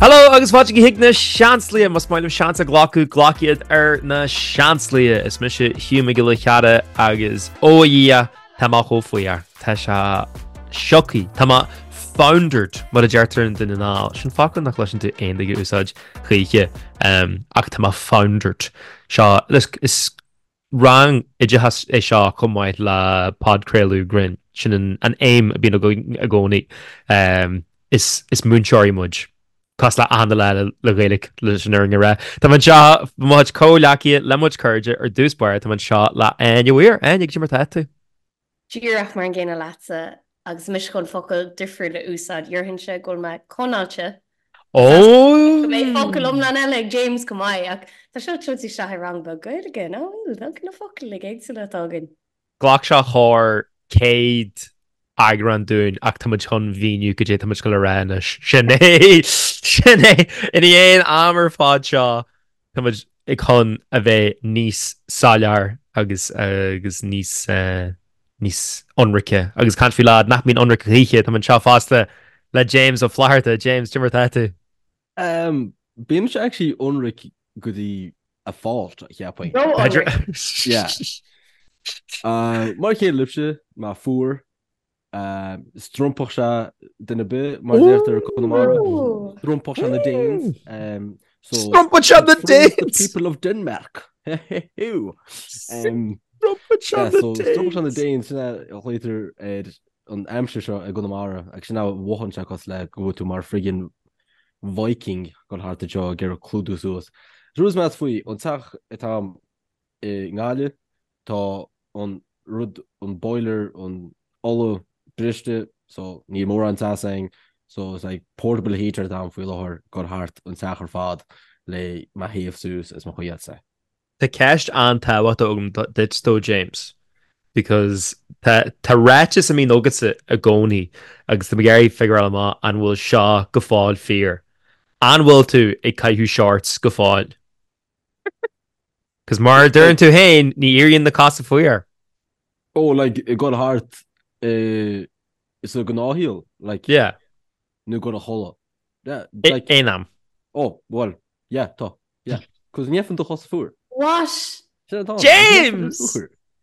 Hello agus fáilte chuig na Seansálaithe, más maith libh seans a ghlacadh, glac iad ar na Seansálaithe. Is mise Hugh Mac Giolla Chearra agus ó a Dhia, tá mé chomh fuar. Tá sé sioctha. Tá mé foundered mar a deirtear i nDún na nGall. Sin focal nach gcloiseann tú aon duine ag úsáid choíche ach tá mé foundered. Seo is rang oideachais é seo chomh maith le podchraoladh grinn. Sin an aidhm a bhíonn againn i gcónaí. Is múinteoirí muid. Cosúil le achan duine eile le Gaeilge leis an fhírinne a rá. Tá mé anseo le mo chuid comhghleacaithe, le mo chuid cairde ar dtús báire, tá mé anseo le Áine Weir. Áine, cad é mar atá tú? Díreach mar an gcéanna leatsa, agus mise chun focal difriúil a úsáid, déarfainnse go bhfuil mé conáilte. Ó! Go mbeidh focal iomlán eile ag James chomh maith, ach tá seo ag tabhairt isteach i rang beag Gaeilge, nach bhfuil? Look, na focail uilig éagsúla atá againn. Ghlac sé corr 100 eagrán dúinn ach tá muid chun mhíniú cad é tá muid ag dul a rá anois. Sin é! Sin é! Ina dhiaidh an am ar fad seo, tá muid ag chun a bheith níos soiléir agus agus níos níos ionraice. Agus caint faoi leaid nach mbíonn ionraic choíche, tá mé anseo fosta le James Ó Flatharta. James, cad é mar atá tú? Um, bímse actually ionraic go dtí a fault, cheapfainn. Ró-ionraic. Yeah. Uh, mar a chéile libhse, mé fuar, Strompfadh sé duine ar bith, mar a deirtear i Conamara. Strompfadh sé na Danes. Strompfadh sé na Danes! The people of Denmark. Strompfadh sé na Danes! Strompfadh sé na Danes, sin a ghlaotar ar an aimsir seo i gConamara, agus sin a mhothaíonn sé cosúil le go bhfuil tú mar friggin Viking ag dul thart anseo ag iarraidh clúdú suas. Is rud is measa faoi, an teach atá a'm i nGaillimh, Tá an rud, an boiler, an ola briste so níl mórán teas againn so it's like portable heater atá agam faoi láthair ag dul thart an teach ar fad le mé a théamh suas is mo choinneáil te. Tá ceist an-tábhachtach agam duit though James because tá tá ráiteas a mbíonn agatsa i gcónaí agus tá mé ag iarraidh figureáil amach an bhfuil seo go fóill fíor. An bhfuil tú ag caitheamh shorts go fóill? Cos mar a deireann tú féin, ní éiríonn na cosa fuar. Oh, like, ag dul thart i sa gnáthshaol, like. Yeah. Nó ag dul a chodladh. Yeah, like. Aon am. Oh, well, yeah, tá, yeah. Cos ní fhaigheann do chosa fuar. What? Sin atá. James!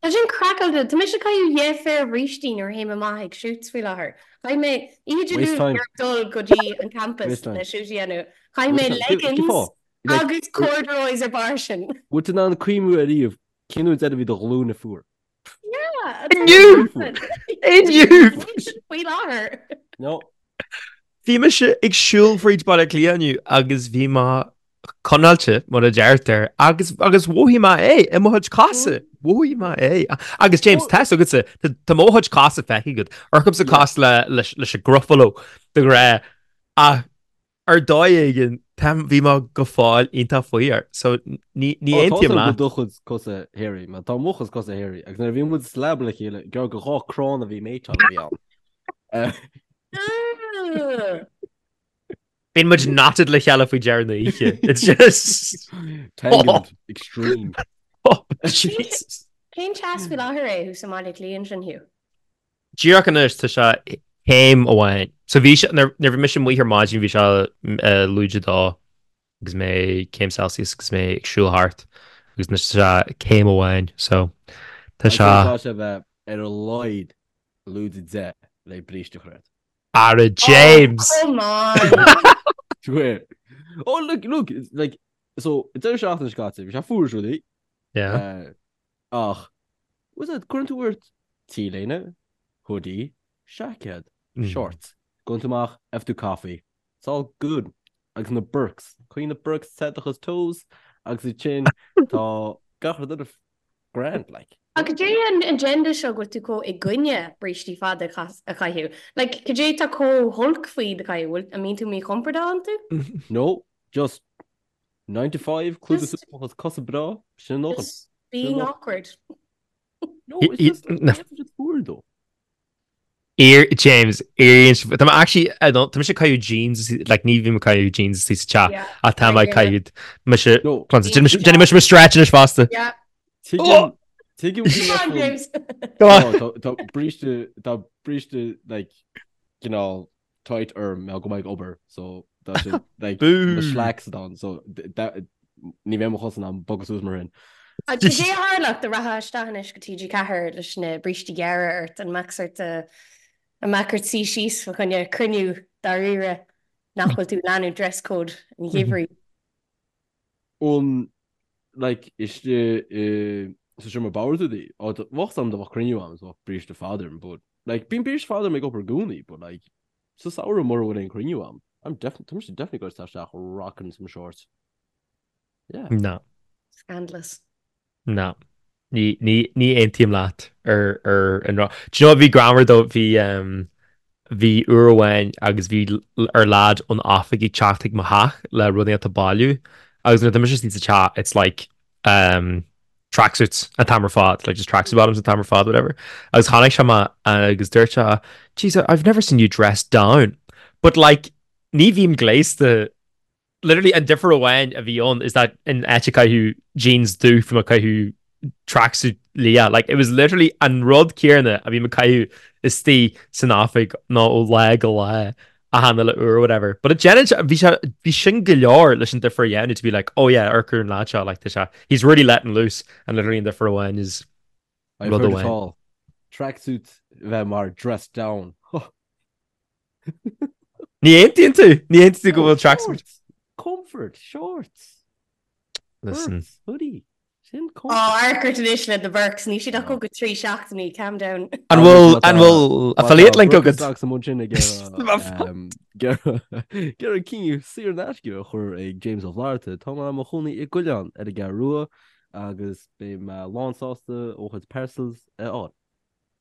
Tá sin craiceáilte. Tá mise ag caitheamh dhá phéire brístí nuair a théim amach ag shoots faoi láthair. Chaith mé oíche Dé Luain ag dul go dtí an campus le shoot a dhéanamh. Chaith mé leggings Agus corduroys ar barr sin. Bhfuil tú in ann cuimhniú ariamh cén uair deireadh a bhí do ghlúine fuar? Yeah! Inniu! Inniu! Faoi láthair. No. Bhí mise ag siúl fríd Baile Átha Cliath inniu agus bhí mé conáilte, mar a deirtear, agus agus mhothaigh mé é i mo chuid cosa. Mhothaigh mé é. Agus James, tá fhios agatsa, tá mo chuid cosa feicthe agat. Amharcaimse cosúil le leis leis an Gruffalo de ghnáth ach Ar dóigh éigin, tá, bhí mé go fóill iontach fuar, so ní, ní Ó, tá aontaím go leat. do chuid cosa hairy, mar tá mo chuid cosa hairy, agus nuair a bhí muid sa leaba le chéile, gur go dhá crann a bhí méiteáil a bhí ann. Bíonn muid knotted le chéile faoi dheireadh na oíche. It's just... Tangled, extreme. Oh, Jesus. Cén teas faoi láthair é thuas i mBaile Átha Cliath ansin, Hugh? Díreach anois tá sé céim amháin. So bhí sé, nuair a bhí mise amuigh ar maidin bhí sé lúide dó agus mé céim Celsius agus mé ag siúl thart agus anois tá sé céim amháin. So tá sé. Tá sé bheith ar a laghad lúide 10 le bríste a chur ort. Ara James! Oh, come on! Swear. Oh look, look, like, so deireadh seachtaine seo caite, bhí sé fuar is rudaí. Yeah. Ach, was it, cuireann tú ort T-léine, hoodie, seaicéad, shorts, gabhann tú amach, have tú coffee, it's all good. Agus na Birks, coinnigh na Birks te do chuid toes agus ansin tá gach rud eile grand, like. Ach cad é an agenda seo go bhfuil tú chomh i gcoinne brístí fada a chaitheamh? Like, cad é tá chomh holc faoi iad a chaitheamh? Bhfuil, an mbíonn tú míchompordach iontu? No, just 9 to 5, clúdú suas mo chuid cosa breá, sin a ndóthain. Just being awkward. No, it's just, it's fuar though. Ear, James, éiríonn sé, tá mé actually, I don't, tá mise ag caitheamh jeans, like ní bhím ag caitheamh jeans istigh sa teach, ach tá mé ag caitheamh, mise, No. déanfaidh mise mo stretch anois fosta. Yeah. Tuigim, tuigim go Come on, James. Come on. Tá, tá bríste, tá bríste, like, cineál tight orm, go mbeidh obair, so. Tá sé like na slacks atá ann so ní bheidh mo chosa in ann bogadh suas mar sin. Cad é a tharlódh dá rachfá isteach anois go TG4 leis na brístí gearra ort, an mbeadh sort an mbeadh ort suí síos fa choinne cruinniú dáiríre nach bhfuil tú ag leanúint dress code an gheimhridh? An like istigh i sa seomra boird rudaí, á bheadh a fhios agam dá mbeadh cruinniú ann is bheadh bríste fada orm but like bíonn bríste fada orm ag obair i gcónaí but like Sa samhradh mura bhfuil aon cruinniú ann, I'm definitely, tá mise definitely ag dul isteach rocking some shorts. Yeah. No. Scandalous. No. Ní, ní, ní aontaím leat ar, ar an rud. Do you know what bhí greannmhar though, bhí, um, bhí uair amháin agus bhí ar lad ón oifig ag teacht chuig mo theach le rudaí a bhailiú agus nuair atá mise istigh sa teach it's like, um, tracksuits an t-am ar fad, like just tracksuit bottoms an t-am ar fad, whatever. Agus chonaic sé mé agus dúirt sé, Jeez, I've never seen you dressed down. But like, ní bhím gléasta, literally an difear amháin a bhí ann is that in áit ag caitheamh jeans dubh bhí mé ag caitheamh tracksuit liath. Like, it was literally an rud céanna a bhí mé ag caitheamh istigh san oifig ná ó lá go lá. Achan uile uair or whatever. But déanann sé, bhí sé, bhí sin go leor leis an difear a dhéanamh to be like, oh yeah, amharc ar an lad seo, like tá sé, he's really letting loose and literally an difear amháin is I've rud heard it amháin. all. Tracksuit bheith mar dressed down. Ní aontaíonn tú? Ní aontaíonn tú go bhfuil tracksuit? Shorts! Comfort! Shorts! Listen. Birks, hoodie. Sin Ó, amharc ort anois le na Birks, níl siad ach go 3 seachtainí, calm down. An bhfuil, an bhfuil affiliate link agat? Agus an sin ag iarraidh cinneadh saor in aisce a chur ag James Ó Flatharta. Tá mé i mo chónaí i gCuilleán ar an gCeathrú Rua agus beidh mé lán sásta mo chuid parcels a fháil.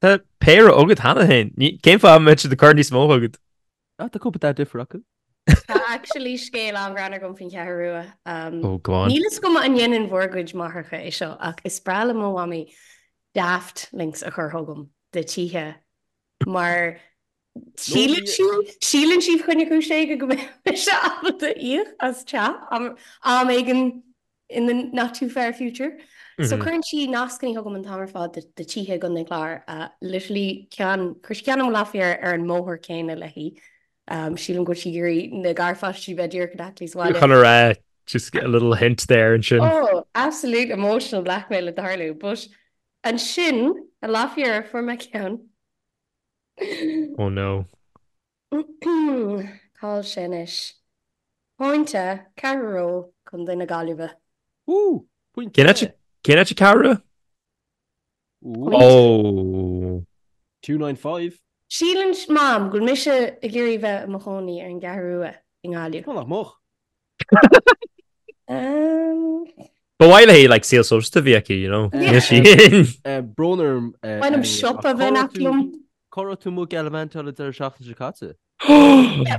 Tá péire agat cheana féin. Cén fáth a mbeadh siad ag cur níos mó chugat? Ah, tá cúpla dath difriúil acu. Tá actually scéal an-ghreannmhar agam faoin Cheathrú Rua. Oh, go on. Níl fhios agam an ndéanann bhur gcuid máithreacha é seo ach is breá le mo mhamaí daft links a chur chugam de tithe mar síleann sí, síleann sí fá choinne cúis éigin go mbeidh mise ábalta íoc as teach am éigin in the not too far future. So cuireann sí nascanna chugam an t-am ar fad de tithe i gContae an Chláir. Literally ceann, chuir sí ceann i Láfier ar an mbóthar céanna léi. Sílim go bhfuil sí ag iarraidh na garpháistí bheith díreach in aice léi sa bhaile. Chun a rá, just a little hint there ansin. Oh, absolute emotional blackmail ag tarlú. But ansin, i Láfier, fuair mé ceann. Oh no. Cá'il sé anois? Pointe, Ceathrú Rua, Contae na Gaillimhe. Woo! Pointe! Cén áit, cén áit Ceathrú Rua? Pointe. Oh. 295. Síleann Mam go bhfuil mise ag iarraidh bheith i mo chónaí ar an gCeathrú Rua i nGaillimh. Tá nach mbeadh. Ba mhaith léi like saol sóisialta a bhí aici, you know. Níl sí. Brón orm. Ba mhaith liom siopa a bheith in aice liom. Cá raibh tú amuigh gallivantáil an deireadh seachtaine seo caite?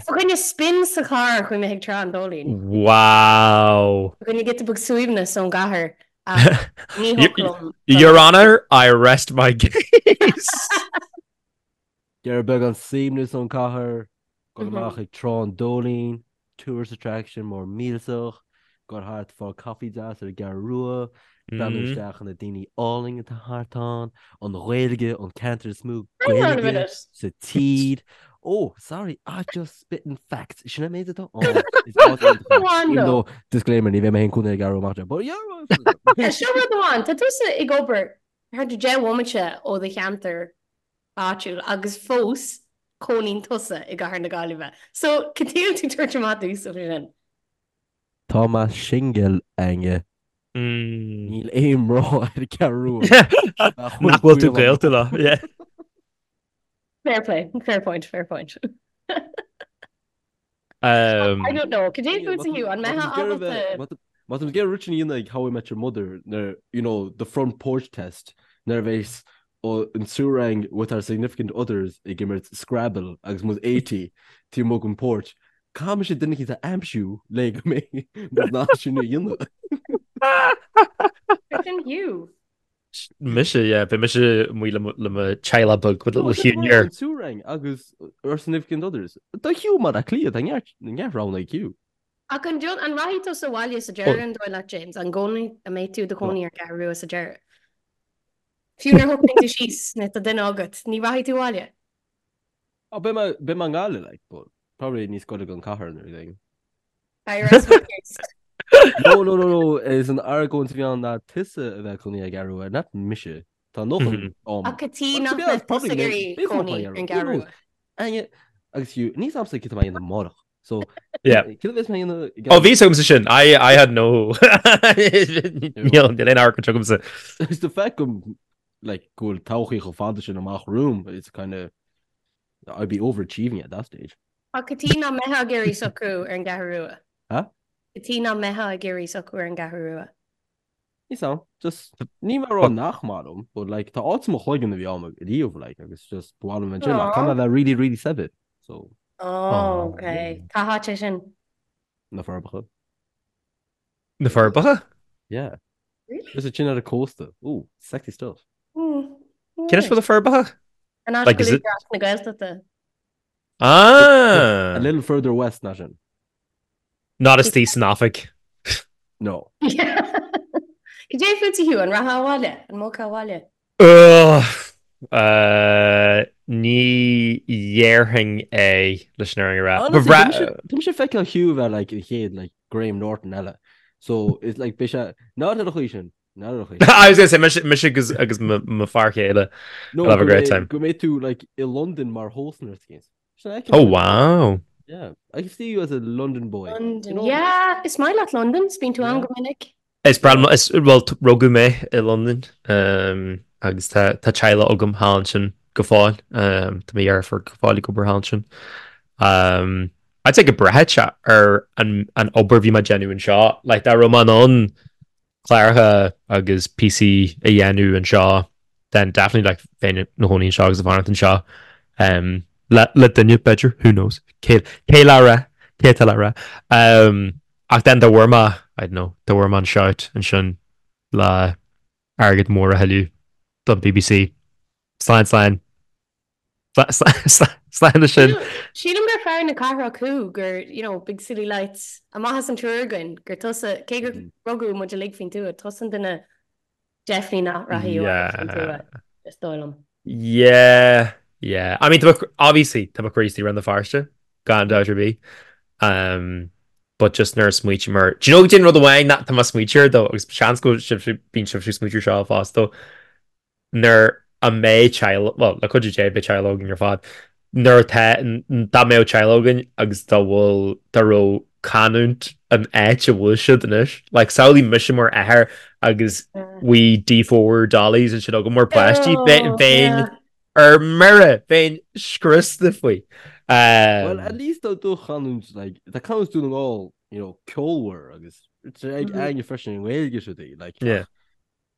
Fá choinne spin sa charr chuaigh mé chuig Trá an Dóilín. Wow! Fá choinne giota beag suaimhneas ón gcathair ach ní thiocfadh liom. Your Honour, I rest my case. Iarraidh beagán suaimhneas ón cathair, dul amach ag Trá an Dóilín, tourist attraction mór millteach, dul thart fáil caife deas ar an gCeathrú Rua, breathnú isteach ar na daoine álainn atá thart ann, an Ghaeilge, an ceantar is mó Gaeilge sa tír. Oh, sorry, I just spitting facts. Sin an méid atá ann. Is áit iontach é. Even though, disclaimer, ní bheidh mé féin cónaí ar an gCeathrú Rua amach anseo, but yeah. Seo rud amháin, tá tusa ag obair thart ar 10 bhomaite ó do cheantar áitiúil agus fós cónaíonn tusa i gcathair na Gaillimhe. So, cad chuige a bhfuil tú ag tabhairt amach domhsa faoi sin? Tá mé singil, Áine. Níl aon mná ar an gCeathrú Rua. Nach bhfuil tú gaolta leo, yeah. Fair play, fair point, fair point. I don't know, cad é fútsa Hugh, an mbeifeá ábalta... Má tá ag rud sin a dhéanamh ag How I Met Your Mother nuair, you know, the front porch test, nuair a bheas an triúr againn with our significant others ag imirt Scrabble agus muid 80 taobh amuigh den porch, caithfidh mise duine eicínt a aimsiú le go mbeidh muid in ann sin a dhéanamh. Sin Hugh. Mise, yeah, beidh mise amuigh le mo teaghlach beag with little Hugh here. An triúr againn agus our significant others. Tá Hugh mar a cliath, tá neart roghanna ag Hugh. Ach an an rachaidh tusa abhaile sa deireadh an dóigh leat, James? An gcónaí, an mbeidh tú i do chónaí ar an gCeathrú Rua sa deireadh? Fiú nuair a shocraíonn tú síos nó tá duine agat, ní rachaidh tú abhaile? Oh, beidh mé, beidh mé i nGaillimh, like, but probably níos gaire don cathair nó rud éigin. I rest my case. No, no, no, no, is an argóint a bhí ann ná tusa a bheith cónaí ag an gCeathrú Rua, not mise. Tá nócha am. Ach cad chuige nach mbeadh tusa ag iarraidh cónaí ar an gCeathrú Rua? Áine, agus Hugh, níl 's agamsa cad tá mé a dhéanamh amárach. So, Yeah. cad a bheas mé a dhéanamh? Ó, bhí 's agamsa sin. I, I had no... Níl, níl aon argóint agamsa. It's the fact go, like, go bhfuil todhchaí chomh fada sin amach romham, it's kind of, I'd be overachieving at that stage. Ach cad chuige nach mbeifeá ag iarraidh socrú ar an gCeathrú Rua? Huh? Cad chuige nach mbeifeá ag iarraidh socrú ar an gCeathrú Rua? Níl 's a'm, just, ní mar rá nach maith liom, but like, tá áit i mo chloigeann a bhí a'm riamh, like, agus just, ba mhaith liom ansin, ach tá mé bheith really, really saibhir, so. Oh, ok. Cá háit é sin? Na Forbacha. Na Forbacha? Yeah. Really? Just ansin ar an cósta. Ooh, sexy stuff. Mm. Cén áit a bhfuil na Forbacha? An áit Like, go is it- Údarás na Gaeltachta. Ah! A little further west ná sin. Not istigh san oifig. No. Cad é fút a Hugh, an rachfá abhaile? An mbogfá abhaile? Ugh, uh, ní dhéarfainn é leis an fhírinne a rá. Ba Honestly, bhreá- tá mise- tá mise ag feiceáil Hugh a bheith like an chéad like Graham Norton eile. So it's like beidh sé not ar an chaoi sin. Not ar an chaoi sin. I was gonna say mise mise agus agus mo mo fear chéile. No, We'll have a go great mbeidh- time. Go mbeidh tú like i London mar host nó rud éigin. Oh wow. Yeah, I can see you as a London boy. London. You know? Yeah, is maith leat London, 's bíonn tú ann go minic. Is breá liom, is, well, rugadh mé i Londain um, agus tá tá teaghlach agam thall ansin go fóill. Um, tá mo dheirfiúr go fóill ag obair thall ansin. Um, I'd say go mbraithfeadh sé ar an, an obair a bhí mé ag déanamh anseo. Like, dá raibh mé in ann cláracha agus píosaí a dhéanamh anseo, then definitely like bheinn i mo chónaí anseo agus ag fanacht anseo. Um, le, le duine, b'fhéidir, who knows? Cé, cé le rá? Cé atá le rá? Um, ach then dá bhfuair mé, I don't know, dá bhfuair mé an shout ansin le airgead mór a thuilleamh don BBC. Slán, slán. Slán leis sin. Sílim gur fear na cathrach thú, gur, you know, big city lights, amach as an triúr againn, gur tusa, cé gur rugadh muid uilig faoin tuath, tusa an duine definitely nach rachaidh abhaile faoin tuath, is dóigh liom. Yeah, yeah. I mean, tá mo, obviously, tá mo chroí istigh i Rann na Feirste, gan dabht ar bith. Um, but just nuair a smaoitím air, do you know cén rud amháin nach tá mé ag smaoitiú air though, agus seans go sibh, bíonn sibh ag smaoitiú air seo fosta, nuair a mbeidh teaghlach, bhuel, le cuidiú Dé, beidh teaghlach againn ar fad, nuair atá, dá mbeadh teaghlach againn agus dá bhfuil, dá raibh canúint an áit a bhfuil siad anois, like, samhlaigh mise mar athair agus wee D4 dollies ansin agam mar páistí, bheinn ar mire, bheinn scriosta faoi. Well, at least tá do chanúint, like, tá canúint Dún na nGall, you know, ceolmhar agus ag Áine freisin i nGaeilge siúd í, like, Yeah.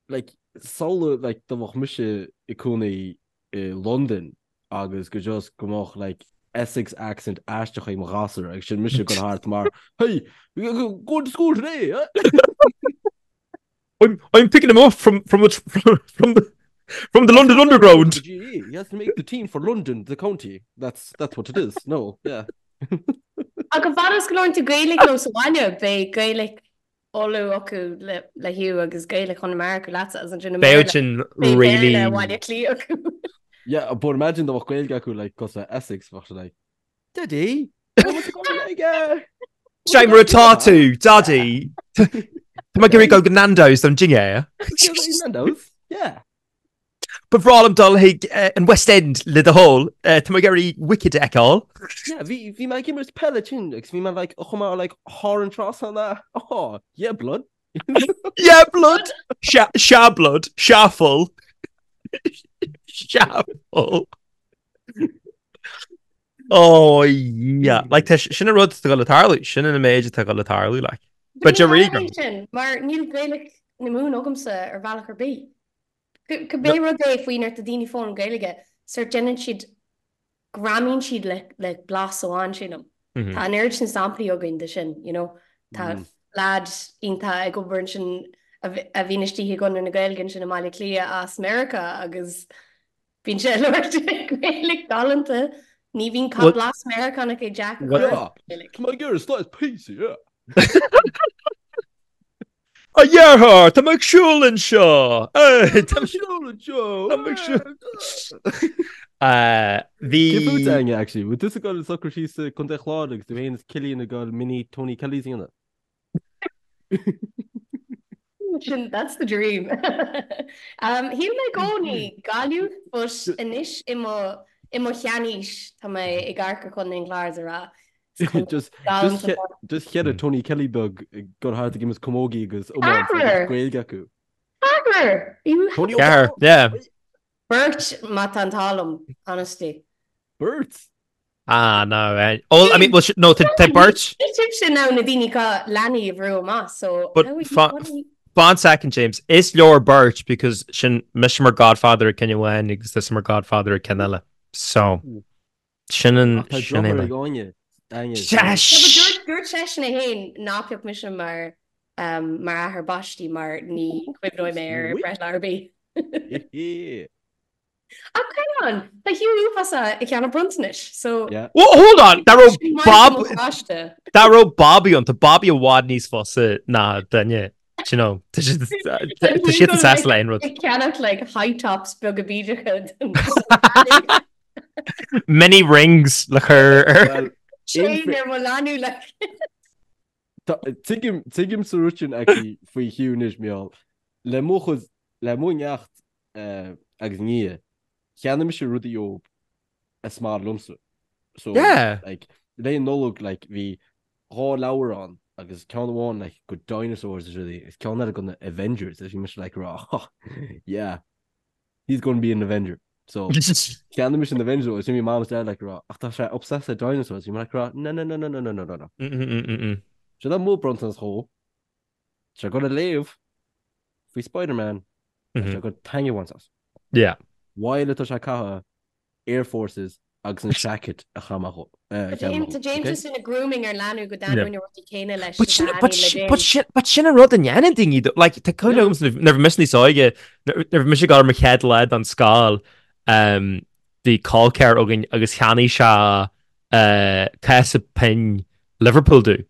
like, samhlaigh, like, dá mbeadh mise i cónaí i Londain agus go just go mbeadh, like, Essex accent aisteach ag mo ghasúr agus sin mise ag goil thart mar, Hey, going to school today, eh? I'm, I'm picking him up from, from, the, from, from the, from the London Underground. The GAA. He has to make the team for London, the county. That's, that's what it is. No, yeah. Ach an fad is go labhrann tú Gaeilge leo sa bhaile, beidh Gaeilge Uladh acu le Hugh agus Gaeilge Chonamara acu leatsa agus ansin i Bheadh sin mBéarla really beidh Béarla Bhaile Átha Cliath acu. Yeah, but imagine dá mbeadh Gaeilge acu like cosúil le Essex, bheadh sé like, Daddy, what was it like? Sé mar atá tú, Daddy. Tá mé ag iarraidh dul go Nando's don dinnéar. Nando's? Yeah. Ba bhreá liom dul chuig an West End le do thoil. Tá mé ag iarraidh Wicked a fheiceáil. Yeah, bhí bhí mé ag imirt peile ansin agus bhí mé like chomh maith like thar an trasnán a oh, yeah blood. Yeah blood. Sea sea blood. Sea full. Sea full. Oh yeah. Like tá sin an rud atá ag dul a tarlú. Sin an méid atá ag dul a tarlú like. But you're Ní tharlaíonn sin mar níl Gaeilge na Mumhan agamsa ar bhealach ar bith. Cibé rud é faoi nuair atá daoine ag foghlaim Gaeilge, sórt déanann siad, greamaíonn siad le le blas amháin, sílim. Tá an oiread sin samplaí againn de sin, you know. Tá leaid iontach ag obair ansin a bhíonn istigh i gConradh na Gaeilge ansin i mBaile Átha Cliath as Meiriceá agus bíonn sé ag labhairt Gaeilge galánta. Ní bhíonn Well, blas Meiriceánach ag Jack a chur Yeah, Gaeilge. tá mé ag iarraidh slice pizza, yeah. A dheartháir, tá mé ag siúl anseo! Tá mé ag siúl anseo! Tá mé ag siúl. Bhí. Cé fút, Áine, actually? Bhfuil tusa ag dul socrú síos i Contae Chláir agus tú féin is Cillian ag dul mini Tony Kellys a dhéanamh? Sin, that's the dream. Shíl mé i gcónaí Gaillimh, but anois i mo, i mo sheanaois tá mé ag amharc ar Chontae an Chláir is ag rá, is contae Just, galánta just, just cheithre Tony Kelly beag ag dul thart ag imirt camógaí agus iomáint agus Ceathrar! Gaeilge acu. Ceathrar! You Tony Ceathrar, yeah. Beirt má tá an t-ádh liom, honestly. Beirt? Ah, no. Eh. Oh, I mean, well, no, tá beirt. Sibhse now na daoine atá leanaí a bhrú amach, so But how are you, fa- what are you... Fan second, James. Is leor beirt because sin mise mar godfather ag ceann amháin agus tusa mar godfather ag ceann eile. So, sin an Ach tá sin é drochthóir mé. ag Áine. Áine. Sesh! No, but dúirt, dúirt seisean é féin ná pioc mise mar, um, mar athair baistí mar ní chuimhneoidh mé ar breithlá ar bith. Ach hang on, tá Hugh uafásach ag ceannach bronntanais, so... Yeah. Well, hold on, dá raibh Sin maith Bob do mo pháiste. dá raibh Bobby ann, tá Bobby i bhfad níos fusa ná duine, do you know, tá siad tá siad an sásta le aon rud. Ag ceannach like high tops beaga bídeacha don Mini rings le cur ar. Well, Chain ar mo leanbh like. Tuigim tuigim sa rud sin actually faoi Hugh anois, Mícheál. Le mo chuid le mo neacht agus nia, cheannaigh mise rudaí dóibh is maith liomsa. So, Yeah. like, le Nollaig, like, bhí dhá leabhar ann agus ceann amháin, like, go dinosaurs is rudaí, agus ceann eile go na Avengers, agus bhí mise, like, rá, yeah, he's going to be an Avenger. So, cheannaigh mise an Avenger agus bhí mom is dad, like, rá, ach tá sé obsessed le dinosaurs, bhí mé, like, rá, no, no, no, no, no, no, no, no, no. Mm-mm-mm-mm. Seo é mo bronntanas dhó. Tá sé ag gabháil a léamh faoi Spider-Man tá sé ag gabháil taitneamh a bhaint as. Yeah. While atá sé ag caitheamh Air Forces agus an jacket a chaith mé dhó. Tá James just ina grooming ar leanbh go dtaitneoidh na rudaí céanna leis But is sin a but thaitníonn le sin James. but sin but sin an rud a ndéanann daoine though. Like tá cuimhne agam nuair a bhí mise níos óige nuair a bhí mise ag dul ar mo chéad lá don scoil um, bhí col ceathar againn agus cheannaigh sé uh, cás pinn Liverpool domh.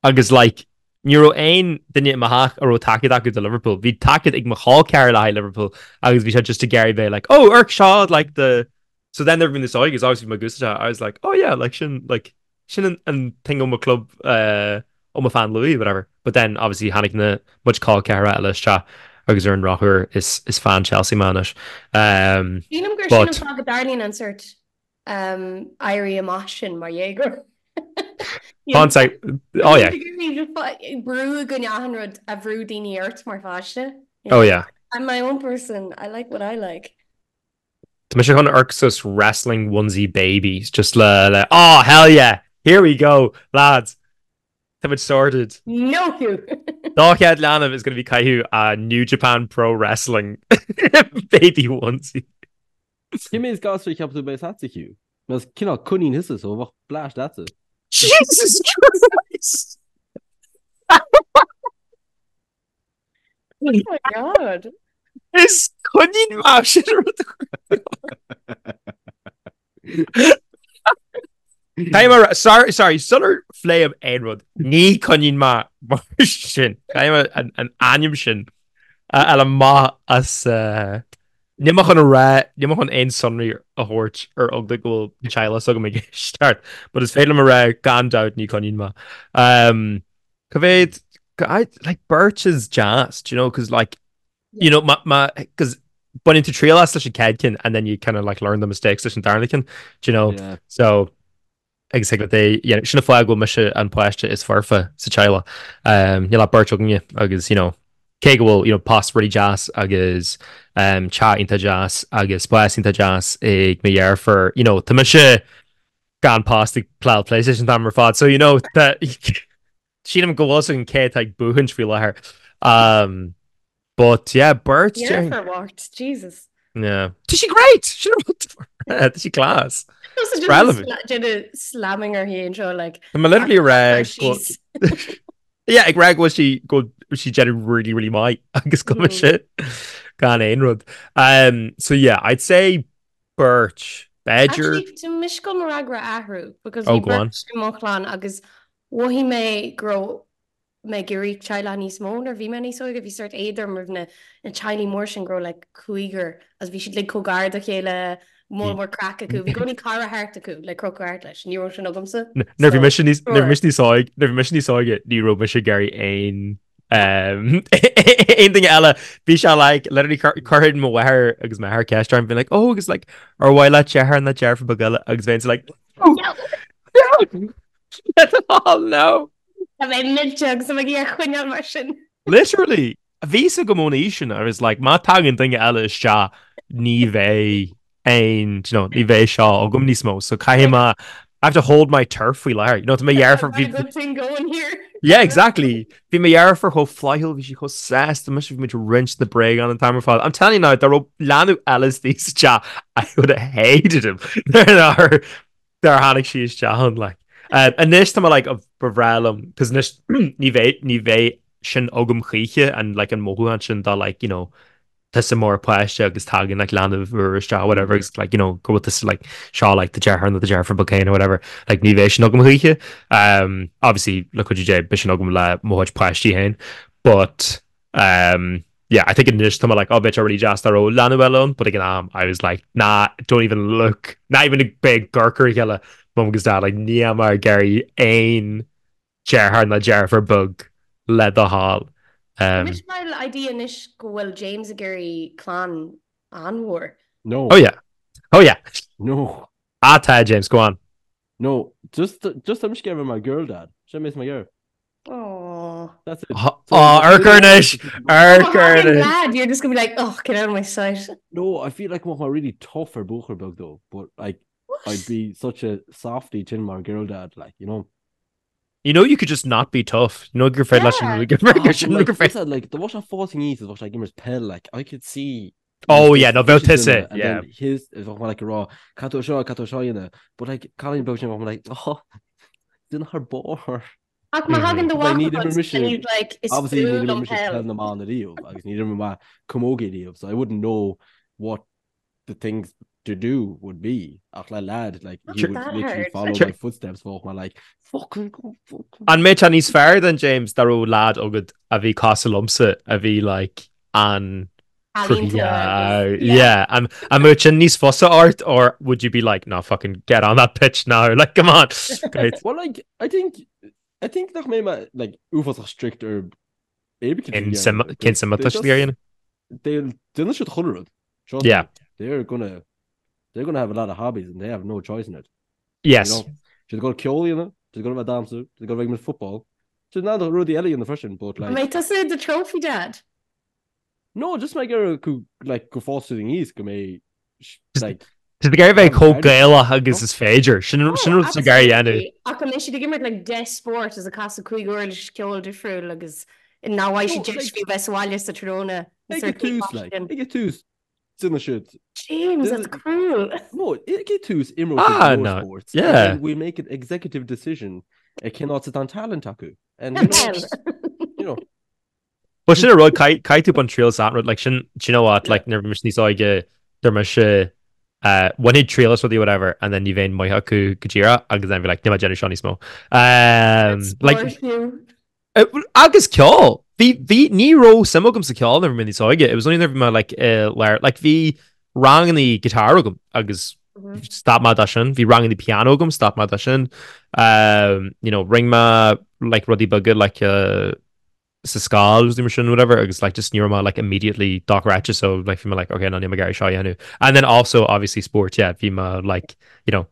Agus like, ní raibh aon duine i mo theach a raibh tacaíocht acu do Liverpool. Bhí tacaíocht ag mo chol ceathar le haghaidh Liverpool agus bhí sé just ag iarraidh bheith like, oh, amharc seo, like the... So then nuair a bhí mé níos óige, obviously bhí mé ag úsáid é, I was like, oh yeah, like sin, like, sin an, an thing ó mo club, uh, ó mo fan Louis, whatever. But then obviously tháinig na muid col ceathar eile isteach agus ar an drochuair is, is fan Chelsea mé anois. Um, Sílim gur sin an but fáth go dtarlaíonn an sórt éirí amach sin mar dhéagóir. Tá sé, oh yeah. Brú i gcoinne achan rud a bhrú daoine ort mar pháiste. Oh yeah. I'm my own person, I like what I like. Tá mise chun amharc suas wrestling onesie babies just le le oh hell yeah here we go lads Tá muid sorted. No Hugh! Dá chéad leanbh is gonna be caitheamh a New Japan Pro Wrestling baby onesie. Cé mhéad gasúr a cheapann tú a bheas agatsa, Hugh? Mar is cineál coinín thusa, so bheadh bleaist leatsa. Jesus Christ! Oh my God. Is coinín mé sin rud Caithfidh mé sorry sorry sular phléim aon rud ní coinín mé mar sin Caithfidh mé an an ainm sin a fháil amach as uh, Níl mé chun a rá, níl mé chun aon sonraí a thabhairt ar eagla go bhfuil teaghlach s'agam ag éisteacht, but is féidir liom a rá gan dabht ní coinín mé. Um, Cá mhéad, I, like beirt is deas, do you know, cause like, you know, ma, ma, cause baineann tú triail as leis an chéad ceann and then you kind of like learn the mistakes leis an darna ceann, do you know, Yeah. so agus thig leat é, you know, sin an fáth go bhfuil mise an páiste is foirfe sa teaghlach. Um, níl ach beirt againne agus, you know, cé go bhfuil, you know, post really deas agus um, teach iontach deas agus spás iontach deas ag mo dheirfiúr, you know, tá mise gan post ag playáil PlayStation an t-am ar fad, so, you know, tá, sílim go bhfuil a fhios againn cé atá ag buachaint faoi láthair. Um, But yeah, beirt. Deirfiúr mhart, Jesus. Yeah. Tá sí great! Sin an rud. Tá sí class. Relevant. Déanamh slamming uirthi anseo like. Tá mé literally ag rá go Yeah, ag rá go bhfuil sí go bhfuil sí déanamh really really maith agus go bhfuil sé gan aon rud. Um, so yeah, I'd say beirt. B'fhéidir. Actually, tá mise ag gabháil mo fhreagra a athrú because Oh, bhí go on. beirt i mo chlann agus mhothaigh mé go raibh mé ag iarraidh teaghlach níos mó nuair a bhí mé níos óige. Bhí sórt éad orm roimh na na teaghlaigh mór sin go raibh like cúigear agus bhí siad like chomh gar do chéile Moll mór craic acu. Bhí i gcónaí cara thart acu le crochadh thart leis. Ní raibh sin agamsa. Nuair bhí mise níos nuair bhí mise níos óige nuair bhí mise níos óige ní raibh mise ag iarraidh aon aon duine eile. Bhí sé like literally chuirfeadh mo mháthair agus m'athair ceist orm bhí like oh agus like ar mhaith leat deartháir nó deirfiúr beag eile agus bheinn like no no oh no. Tá mé millte agus tá mé ag iarraidh coinneáil mar sin. Literally Bhí fhios agam ón aois sin, I was like, má tagann duine eile isteach, ní bheidh aon, do you know, ní bheidh seo agam níos mó, so caithfidh mé, I have to hold my turf faoi láthair. You know, tá mo dheirfiúr, bhí, Got a good thing going here. Yeah, exactly. Bhí mo dheirfiúr chomh flaithiúil, bhí sí chomh sásta, mise bhí muid ag roinnt na bréagán an t-am ar fad. I'm telling you now, dá raibh leanbh eile istigh sa teach, I would have hated him. Nuair Dar tháinig sí isteach ann, like. Anois tá mé like, ba bhreá liom, cos anois ní bheidh, ní bheidh sin agam choíche an like an mothúchán sin de like, you know, tusa mar pháiste agus tagann like leanbh úr isteach whatever agus like, you know, go bhfuil tusa like seo like do deartháir nó do deirfiúr beag féin or whatever, like ní bheidh sin agam choíche. Um, obviously le cuidiú Dé beidh sin agam le mo chuid páistí féin, but Um, yeah, I think anois tá mé like, oh, bheadh sé really deas dá raibh leanbh eile ann, but ag an am, I was like, nah, don't even look, not even ag bheith ag amharc ar a chéile, mum agus dad, like, níl mé ag iarraidh aon deartháir ná deirfiúr beag le do thoil. Um, Anois mar idea anois go bhfuil James ag iarraidh clann an-mhór. No. Oh yeah. Oh yeah. No. Ah, tá, James, go on. No, just, just tá mise ag iarraidh a bheith mar girl dad. Sin mé is mar girl. Aww. That's it. Oh, amharc air anois! Amharc air I'm anois! glad you're just gonna be like, oh, get out of my sight. No, I feel like bheadh mé really tough ar buachaill beag though, but like I'd be such a softie tin mar girl dad, like, you know. You know you could just not be tough. You know gur féidir leis an gur Ah, gur sin but, like, gur féidir. listen, like, dá mbeadh sé ag fás aníos is bheadh sé ag imirt peil, like, I could see Oh yeah, no bheadh his tusa, duine, and yeah. then his, bheadh mé like ag rá, caithfidh tú seo, caithfidh tú seo a dhéanamh, but like, cailín beag sin bheadh mé like, oh, duine thar barr. Ach má thagann do Like, mhac níor chugat imir mise- and he's like, is Obviously, fuath níor imir liom mise peil. peil na mban ariamh, agus níor imir mé camogie ariamh, so I wouldn't know what the things to do would be. Ach le lad, like, he Not would that literally hard. follow Sure. my footsteps, bheadh mé like, fucking go, fucking. An mbeadh sé níos fearr then, James, dá raibh lad agat a bhí cosúil liomsa, a bhí like an Ealaíontóir Yeah, agus- yeah. yeah. An an mbeadh sin níos fusa ort or would you be like, no, fucking get on that pitch now, like, come on. Great. Well, like, I think, I think nach mbeidh mé, like, uafásach strict ar éibe Cén suim cén suim atá siad ag iarraidh? They'll déanfaidh siad chuile rud. Trust Yeah. me. They're gonna, they're gonna have a lot of hobbies and they have no choice in it. Yes. You know? Siad ag dul ceol a dhéanamh, siad ag dul a bheith ag damhsa, siad ag dul a bheith ag imirt football. Siad in ann rudaí eile a dhéanamh freisin, but like, An mbeidh tusa the trophy dad? No, just mé ag iarraidh go, like, go bhfásfaidh siad aníos go mbeidh, like, Tá ag iarraidh bheith chomh Gaelach agus is féidir. Sin sin rud atá ag iarraidh a dhéanamh. Ach an mbeidh siad ag imirt like 10 spórt is ag casadh cúig uirlis ceoil difriúil agus nach bhfaighidh siad deis fiú bheith sa bhaile sa tráthnóna. Ag an tús, like, ag an tús, déanfaidh siad. James, that's cruel. No, ag an tús, imreoidh siad Ah, go leor no, sports, and yeah. then we'll make an executive decision ar cén áit atá an talent acu. And, you know, you know. Well sin an rud, caithfidh tú baint triail as an rud, like sin, do you know what, like nuair a bhí mise níos óige, deir mise, uh, bhainfinn triail as rudaí whatever, and then ní bheinn maith acu go díreach, agus then bhí like, níl mé ag déanamh seo níos mó. Um, like, uh, agus ceol! Bhí, bhí, ní raibh suim agam sa ceol nuair a bhí mé níos óige, it was only nuair a bhí mé like, uh, lár, like bhí rangannaí guitar agam, agus stop mé de sin, bhí rangannaí piano agam, stop mé de sin, um, you know, rinne mé like rudaí beaga, like, uh, sa scoil agus mar sin whatever agus like just ní raibh mé like immediately dochreidte so like bhí mé like okay no níl mé ag iarraidh seo a dhéanamh and then also obviously sport yeah bhí mé like you know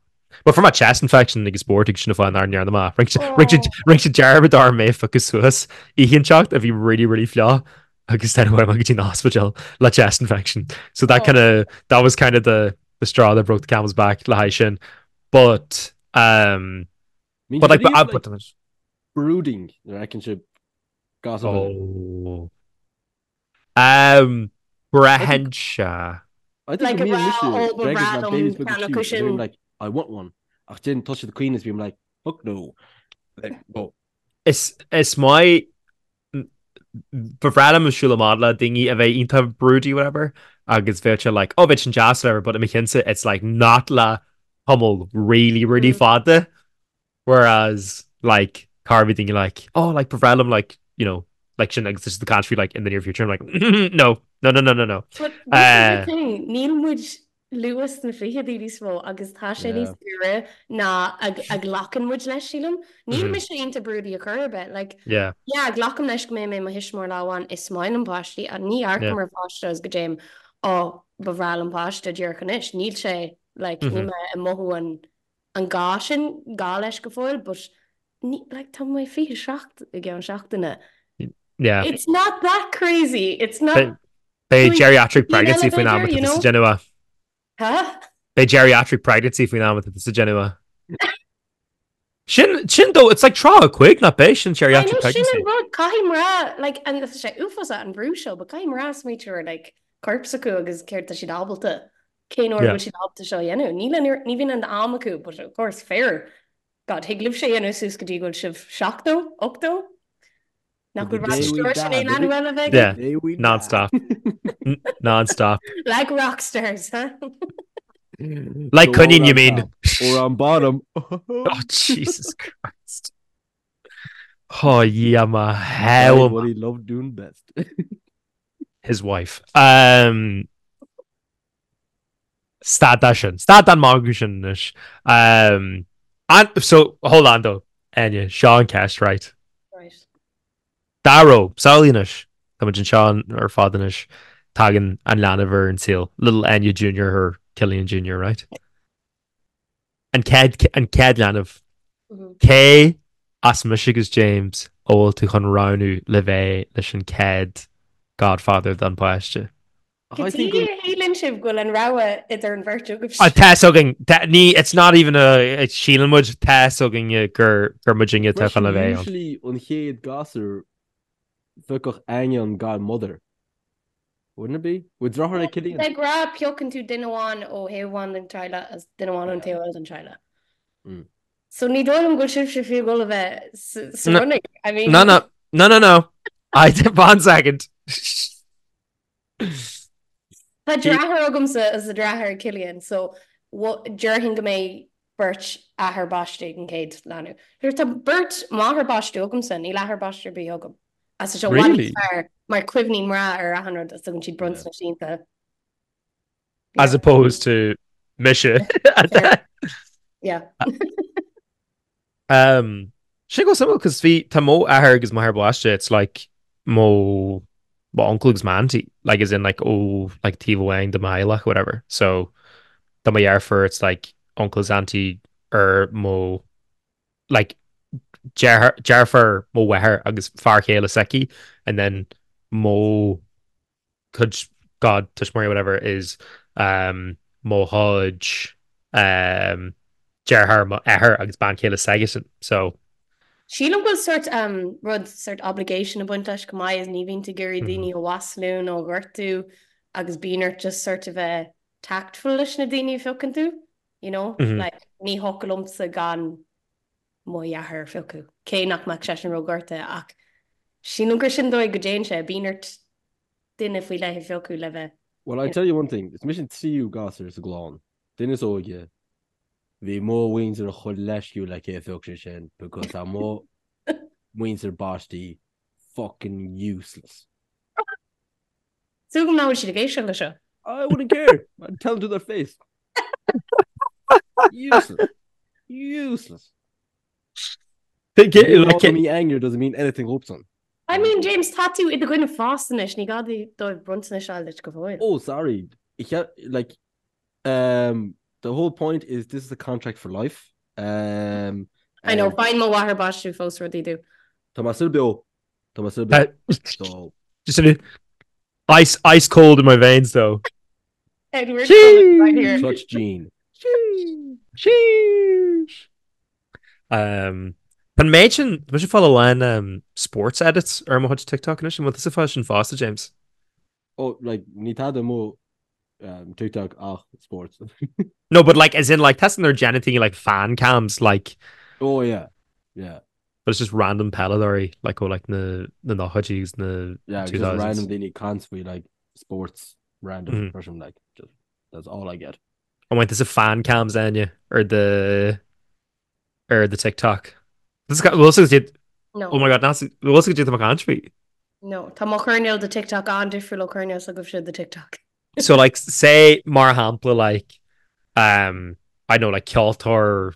Well fuair mé chest infection ag sport agus sin an fáth nár ndearna mé rinne sé dearmad orm mé a phiocadh suas oíche inteacht a bhí really really fliuch agus then chuaigh mé go dtí an hospital le chest infection so that kind of that was kind of the the straw that broke the camel's back le haghaidh sin but um But like, but, but, brooding nuair a fheiceann sibh gasúr beag. Oh. Um, braitheann sé. I think Like go a mbíonn rá, mise oh, ba d'fhreagair bhreá na liom babies beaga ceann cute acu and sin. bím like I want one ach then tá siad ag caoineadh is bím like fuck no. Like, no. Is, is maith ba bhreá liom siúl amach le daoine a bheidh iontach broody whatever agus bheadh sé like oh bheadh sin deas whatever but i mo chinnse it's like not le tamall really really fada whereas like cá bhí daoine like oh like ba bhreá liom like you know like sin agus this is the country like in the near future I'm like no no no no no no But this is the thing níl muid. luath sna fichidí níos mó agus tá sé níos giorra ná a ghlacann muid leis, sílim. Níl mise iontach brúite ar chor ar bith. Like, yeah, glacaim leis go mbeidh mé i mo thuismitheoir lá amháin, is maith liom páistí, ach ní amharcaim ar pháiste agus go dtéim, oh, ba bhreá liom páiste díreach anois. Níl sé, like, níl mé ag mothú an an gá sin, gá leis go fóill, but ní, like, tá mé 27 i gceann seachtaine. Yeah. It's not that crazy, it's not... Beidh geriatric pregnancy faoin am atá tusa ag déanamh é. Huh? Beidh geriatric pregnancy faoin am atá tusa ag déanamh é. Sin, sin though, it's like 35 nach b'é sin geriatric pregnancy. Sin an rud, caithfidh mná, like, and tá sé uafásach an brú seo, but caithfidh mná smaoitiú ar, like, corp s'acu agus céard tá siad ábalta, cén uair bhfuil siad ábalta seo a dhéanamh. Níl an, ní bhíonn an t-am acu, but of course, fir, God, thig libhse a dhéanamh suas go dtí go bhfuil sibh 70, 80? Nach bhfuil Rod Stewart in aon leanbh eile bheith Yeah, non-stop. Non-stop. Like rock stars, huh? Like coinín, you mean? Or on bottom. Oh, Jesus Christ. Oh, yeah, ma hell. What he loved doing best. His wife. Um, Stad de sin. Stad den magadh sin anois. Um, and, so, hold on though, Enya, seo an ceist, right? Right. Dá raibh, samhlaigh anois, tá muid anseo ar fad anois, tagann an leanbh ar an saol, little Enya Junior or Killian Junior, right? An chéad, an chéad leanbh. Cé as mise agus James a bhfuil tú chun roghnú le bheith leis an chéad godfather don páiste? Cad chuige a shíleann sibh go bhfuil an rogha idir an bheirt agaibh? Tá fhios againn, ní, it's not even a, síleann muid, tá fhios againn gur, gur muidinne atá chun a bheith ann. Usually an chéad gasúr phiocfadh Áine an godmother. Wouldn't it be? Bhfuil deartháir ag Cillian? De ghnáth piocann tú duine amháin ó thaobh amháin den teaghlach agus duine amháin ón taobh eile den teaghlach. So ní dóigh liom go bhfuil sibhse fiú ag dul a bheith sa running. I mean. No, no, no, no, no. I, one second. Tá deartháir agamsa agus tá deartháir ag Cillian so déarfainn go mbeidh beirt athair baiste ag an chéad leanbh. Tá beirt máthair baiste agamsa, níl athair baiste ar bith agam. Agus tá sé i bhfad níos fearr mar cuimhníonn mná ar achan rud agus tugann siad bronntanais iontacha. As opposed to mise. Yeah. Um, sin go suimiúil cos bhí tá mo athair agus máthair baiste it's like mo mo uncle agus m'auntie like as in like ó like taobh amháin de mo theaghlach whatever so do mo dheirfiúr it's like uncle is auntie ar mo like deartháir mo mháthair agus fear chéile s'aici and then mo cuid god tuismitheoirí whatever is um, mo chuid um, deartháir mo athair agus bean chéile s'aigesean so Sílim go bhfuil sort um, rud sort obligation ag baint leis go maith is ní bhíonn tú ag iarraidh daoine a mhaslú nó a ghortú agus bíonn ort just sort a bheith tactful leis na daoine a phiocann tú, you know? Mm -hmm. Like, ní thiocfadh liomsa gan mo dheartháir a phiocadh, cé nach mbeadh seisean róghortaithe ach sílim gur sin dóigh go dtéann sé, bíonn ort duine faoi leith a phiocadh le bheith. Well I tell you one thing, is mise an tríú gasúr sa gclann, duine is óige, bhí mo mhuintir chomh leisciúil le cé a phioc sé sin because tá mo mhuintir baistí fucking useless. Súil agam nach bhfuil siad ag éisteacht leis seo. I wouldn't care. I'd tell them to their face. Useless. Useless. Me anger doesn't mean anything dhóibhsan. I mean, James, tá tú i do dhuine fásta anois, ní gá dóibh bronntanais a fháil duit go fóill. Oh, sorry. Like, um, the whole point is this is a contract for life. Um, I know, faigheann mo mháthair baiste fós rudaí domh. Tá mé still beo. Tá mé still beo. So... Just a ice, ice cold in my veins though. Edward Cullen right here. Clutch gene. Sheesh. Um, An méid sin, tá mise ag fáil a lán um, sports edits ar mo chuid TikTok anois, an bhfuil tusa ag fáil sin fosta, James? Oh, like, ní tada i mo um, TikTok ach sports. No, but like, as in like, testing their genitaí like fan cams, like... Oh, yeah, yeah. But it's just random peileadóirí, like ó like na na nóchaidí agus na Yeah, just 2000s. random daoine ag caint faoi like sports random Mm. person like just that's all I get. An bhfuil tusa fan cams Áine ar the ar the TikTok. This got bhfuil tusa did No. Oh my god, bhfuil tusa did caint faoi. No, tá mo choirnéal de TikTok an-difriúil ó choirnéal s'agaibhse de TikTok. So like say mar shampla like um I don't know like ceoltóir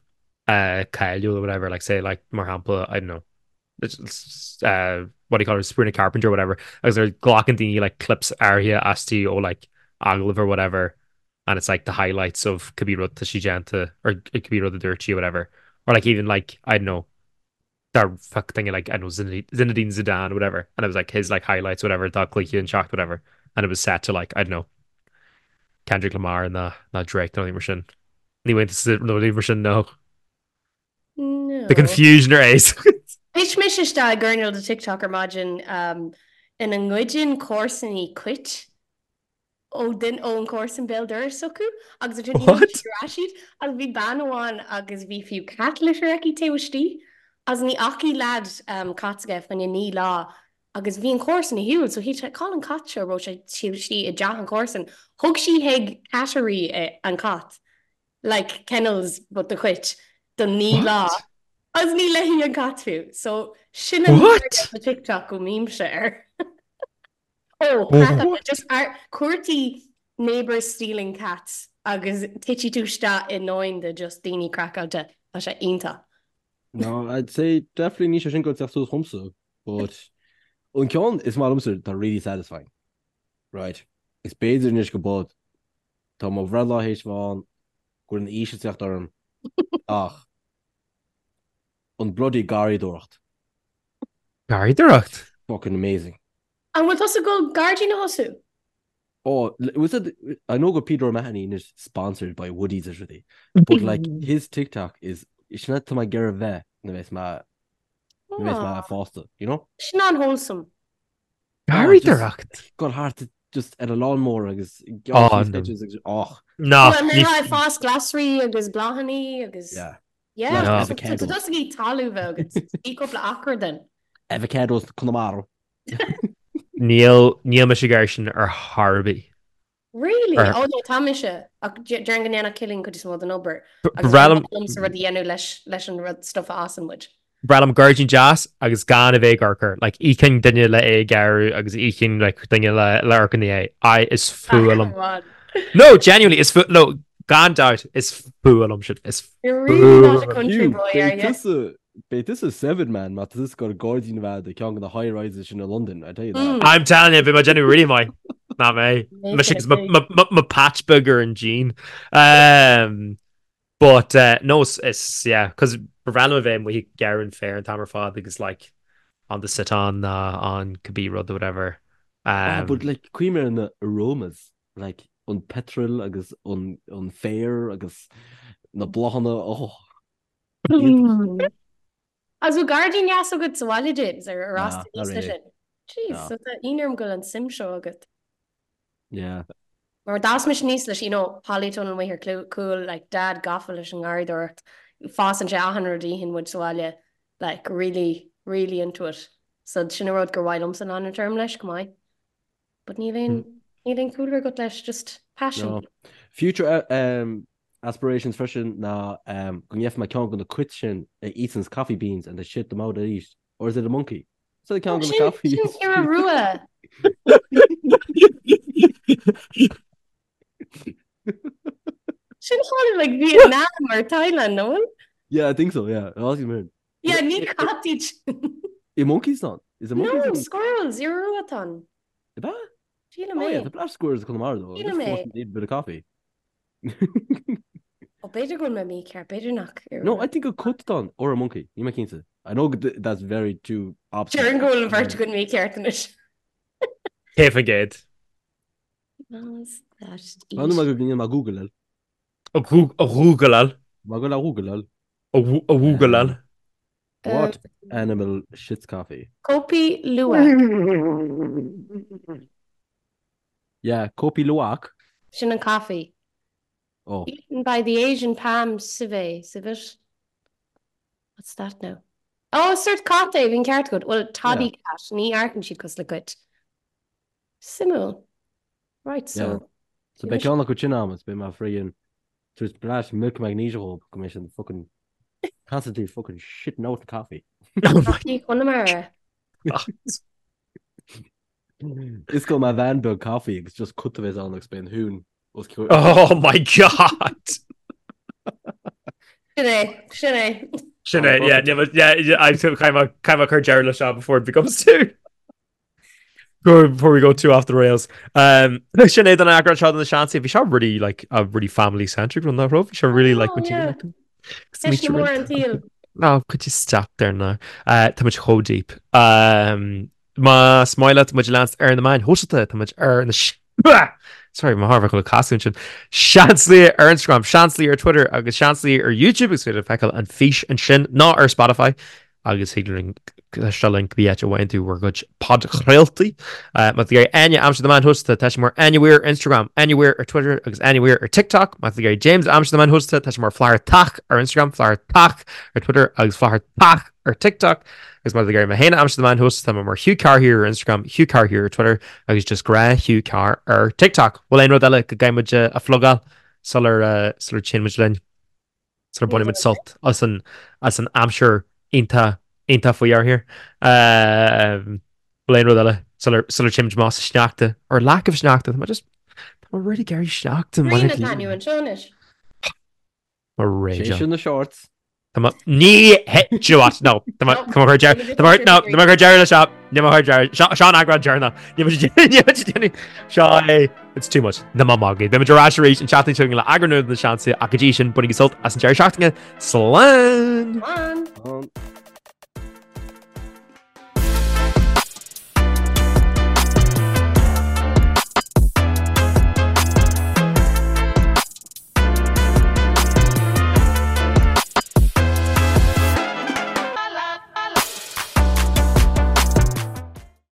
uh cáiliúil or whatever like say like mar shampla I don't know uh what do you call it Sabrina Carpenter or whatever agus they're glacann daoine like clips áirithe aisti ó like agallamh or whatever and it's like the highlights of cibé rud tá sí déanta or cibé rud a dúirt sí or whatever or like even like I don't know that fuck thing like I don't know Zinedine Zidane whatever and it was like his like highlights whatever dá cluiche an seacht whatever and it was set to like I don't know Kendrick Lamar ná ná Drake nó mar sin ní bhain nó ní mar sin no No. The confusion ar ace. Thit mise isteach i gcoirnéal de TikTok ar maidin um, ina ngoideann comharsanaí cait ó duine ón chomharsan béal dorais s'acu agus ansin What? íocann siad ar ais iad agus bhí bean amháin agus bhí fiú cat litter aici taobh istigh agus ní fhacaidh leaid um, cat s'aige fá choinne 9 lá agus bhí an chomharsan ar shiúl so shíl sé cá bhfuil an cat seo raibh sé taobh istigh i dteach an chomharsan thug sí chuig cattery an cat like kennels but do chait do 9 lá What? agus ní léi an cat fiú so sin an What? de TikTok go mbímse air. Ó, craiceáilte, just ar cuartaigh neighbours stealing cats agus titfidh tú isteach i ndomhan de just daoine craiceáilte. Tá sé iontach. No, I'd say definitely níl sé sin ag teacht suas chugam, but an ceann is maith liomsa tá really satisfying. Right. Is b'fhéidir anois go bod tá mo bhreithlá théis bheith ann go bhfuil an aois ag teacht orm ach an bloody garraíodóireacht. Garraíodóireacht? Fucking amazing. An bhfuil tusa ag dul gairdín a thosú? Oh, was it, I know go Peter O'Mahony is sponsored by Woodies is rudaí, but like his TikTok is sin atá mé ag iarraidh bheith nuair a bheas mé nuair a bheas mé fásta, you know? Sin an-wholesome. Garraíodóireacht? Gul thart just ar a lawnmower agus Oh, no. sketches agus och. No. Well, mé ag fás glasraí agus bláthanna agus Yeah. Yeah, No. so tá tusa ag iarraidh talamh bheith agat. Bhí cúpla acra den. Avocados Conamara. Níl níl mise ag iarraidh sin ar chor ar bith. Really? Ar- Oh no, tá mise. Ach déarfainn go ndéanfadh Cillian cuid is mó den obair. Ba Agus bhreá liom liomsa rud a dhéanamh leis leis an rud stuff a fhásann muid. breá liom gairdín deas agus gan a bheith ag amharc air. Like íocfainn duine le é a ghearradh agus íocfainn like duine le le amharc ina dhiaidh. I is fuath liom. Come on. No, genuinely, is fuath no, gan doubt, is fuath liom sin. Is You're really not a fuath. country Hugh, boy, are beidh you? tusa beidh tusa seven man má tá tusa ag dul gairdín a bheith agat i ceann de na high rises sin i London, I tell you that. Mm. I'm telling you, bhí mé déanamh really maith. Ná mé. Make Mise it a agus my, thing. my, my, my patch beag ar an díon. Um, But uh, no, is, is yeah, cos ba bhreá liom a bheith amuigh ag gearradh an féir an t-am ar fad agus like on the sit-on ná on cibé rud or whatever. Ah, Um, but like cuimhnigh ar na aromas, like an petrol agus an, an féar agus na bláthanna, oh, iontach. Agus bhfuil gairdín deas agat sa bhaile, James, ar ar Nah, fhás tú not aníos leis really. sin? Jeez, No. so tá ionadh orm go bhfuil an suim seo agat. Yeah. Mar d'fhás mise aníos leis, you know, polytunnel amuigh ar cúl, like, dad gafa leis an ngarraíodóireacht, fásann sé achan rud a itheann muid sa bhaile, like, really, really into it. So sin an rud gur mhaith liomsa leanúint orm leis, go maith. But níl aon, níl aon cúlra agat leis, just passion. No. Future um, aspirations freisin ná um, go ngeobhaidh mé ceann de na cait sin a eatanns coffee beans and they shit them out arís. Or is it a monkey? Is it ceann de na coffee? Sin iora rua. Sin thall like Vietnam or Thailand, no? Yeah, I think so, yeah. Aussie man. Yeah, ní cat iad sin. I monkeys ann? Is it monkeys? No, squirrels, iora rua atá ann. Ab ea? Sílim Oh yeah, é. the black squirrels Conamara though. Sílim é. Need a bit of coffee. Ó b'fhéidir go bhfuil mé mícheart, b'fhéidir nach iora No, rua. I think a cat atá ann or a monkey. Níl mé cinnte. I know that's very two opposite. Déarfainn go bhfuil an bheirt againn mícheart anois. 100%. Bhfuil mé go gcinn má Google. A Google. Má go le Google. A Google. What animal shits coffee? Kopi Luwak. Yeah, Kopi Luwak. Sin an coffee. Oh. Eaten by the Asian palm civet. Civet? What's that now? Oh, sort cat é, bhí an ceart agat. Well, toddy cat, ní amharcann siad cosúil le cait. Suimiúil. Right, so. Yeah. So beidh ceann acu sin agam is beidh mé friggin tabhairt blast milk magnesia dhóibh go mbeidh siad fucking constantly fucking shitting out the coffee. Coffee Chonamara. Is go mbeidh veain beag caife agus just cut a bheas ann agus beidh an thún os cionn. Oh my God! Sin é, sin é. Sin é, yeah, yeah, yeah, I caithfidh mé cur deireadh le seo before it becomes too. Before we go too off the rails. Um, sin é don eagrán seo de na Seansálaithe. Bhí seo really like a really family centric run nach raibh. Bhí seo really like oh, yeah. mór an tsaoil. No, could you stop there now? Uh, tá muid chomh deep. Um, Más maith leat muid a leanstan ar na meáin shóisialta, tá muid ar na Sorry, mo thar bheith casadh ansin. Seansálaithe ar Instagram, Seansálaithe ar Twitter agus Seansálaithe ar YouTube agus féidir feiceáil an fís ansin ná ar Spotify agus thig linn éisteacht linn cibé áit a bhfaigheann tú bhur gcuid podchraoltaí. Má tá tú ag iarraidh Áine a aimsiú ar na meáin shóisialta, tá sí mar Áine Weir ar Instagram, Áine Weir ar Twitter agus Áine Weir ar TikTok. Má tá tú ag iarraidh James a aimsiú ar na meáin shóisialta, tá sé mar Flathartach ar Instagram, Flathartach ar Twitter agus Flathartach ar TikTok agus má tá tú ag iarraidh mé féin a aimsiú ar na meáin shóisialta, tá mé mar Hugh Carr here ar Instagram, Hugh Carr here ar Twitter agus just gnáth Hugh Carr ar TikTok. Bhfuil aon rud eile go gcaithfidh muid a phlugáil sular sular téann muid linn? Sular baineann muid sult as an as an aimsir iontach iontach faoi here? Bhfuil aon rud eile sular sular téann muid amach sa sneachta or lack of sneachta? Tá mé just tá mé really ag iarraidh sneachta. Grian atá inniu anseo anois. Mo rage. Sé sin na shorts. Tá mé ní hé do you know what? No Tá mé tá mé chur deireadh tá mé no tá mé chur deireadh le seo Ní mé chur deireadh seo seo an eagrán deireanach Ní mé ní mé déanamh seo é It's too much. Na má magaidh. Beimid ar ais arís an tseachtain seo chugainn le eagrán nua de na Seansálaithe ach go dtí sin bainigí sult as an deireadh seachtaine. Slán! Slán! Slán.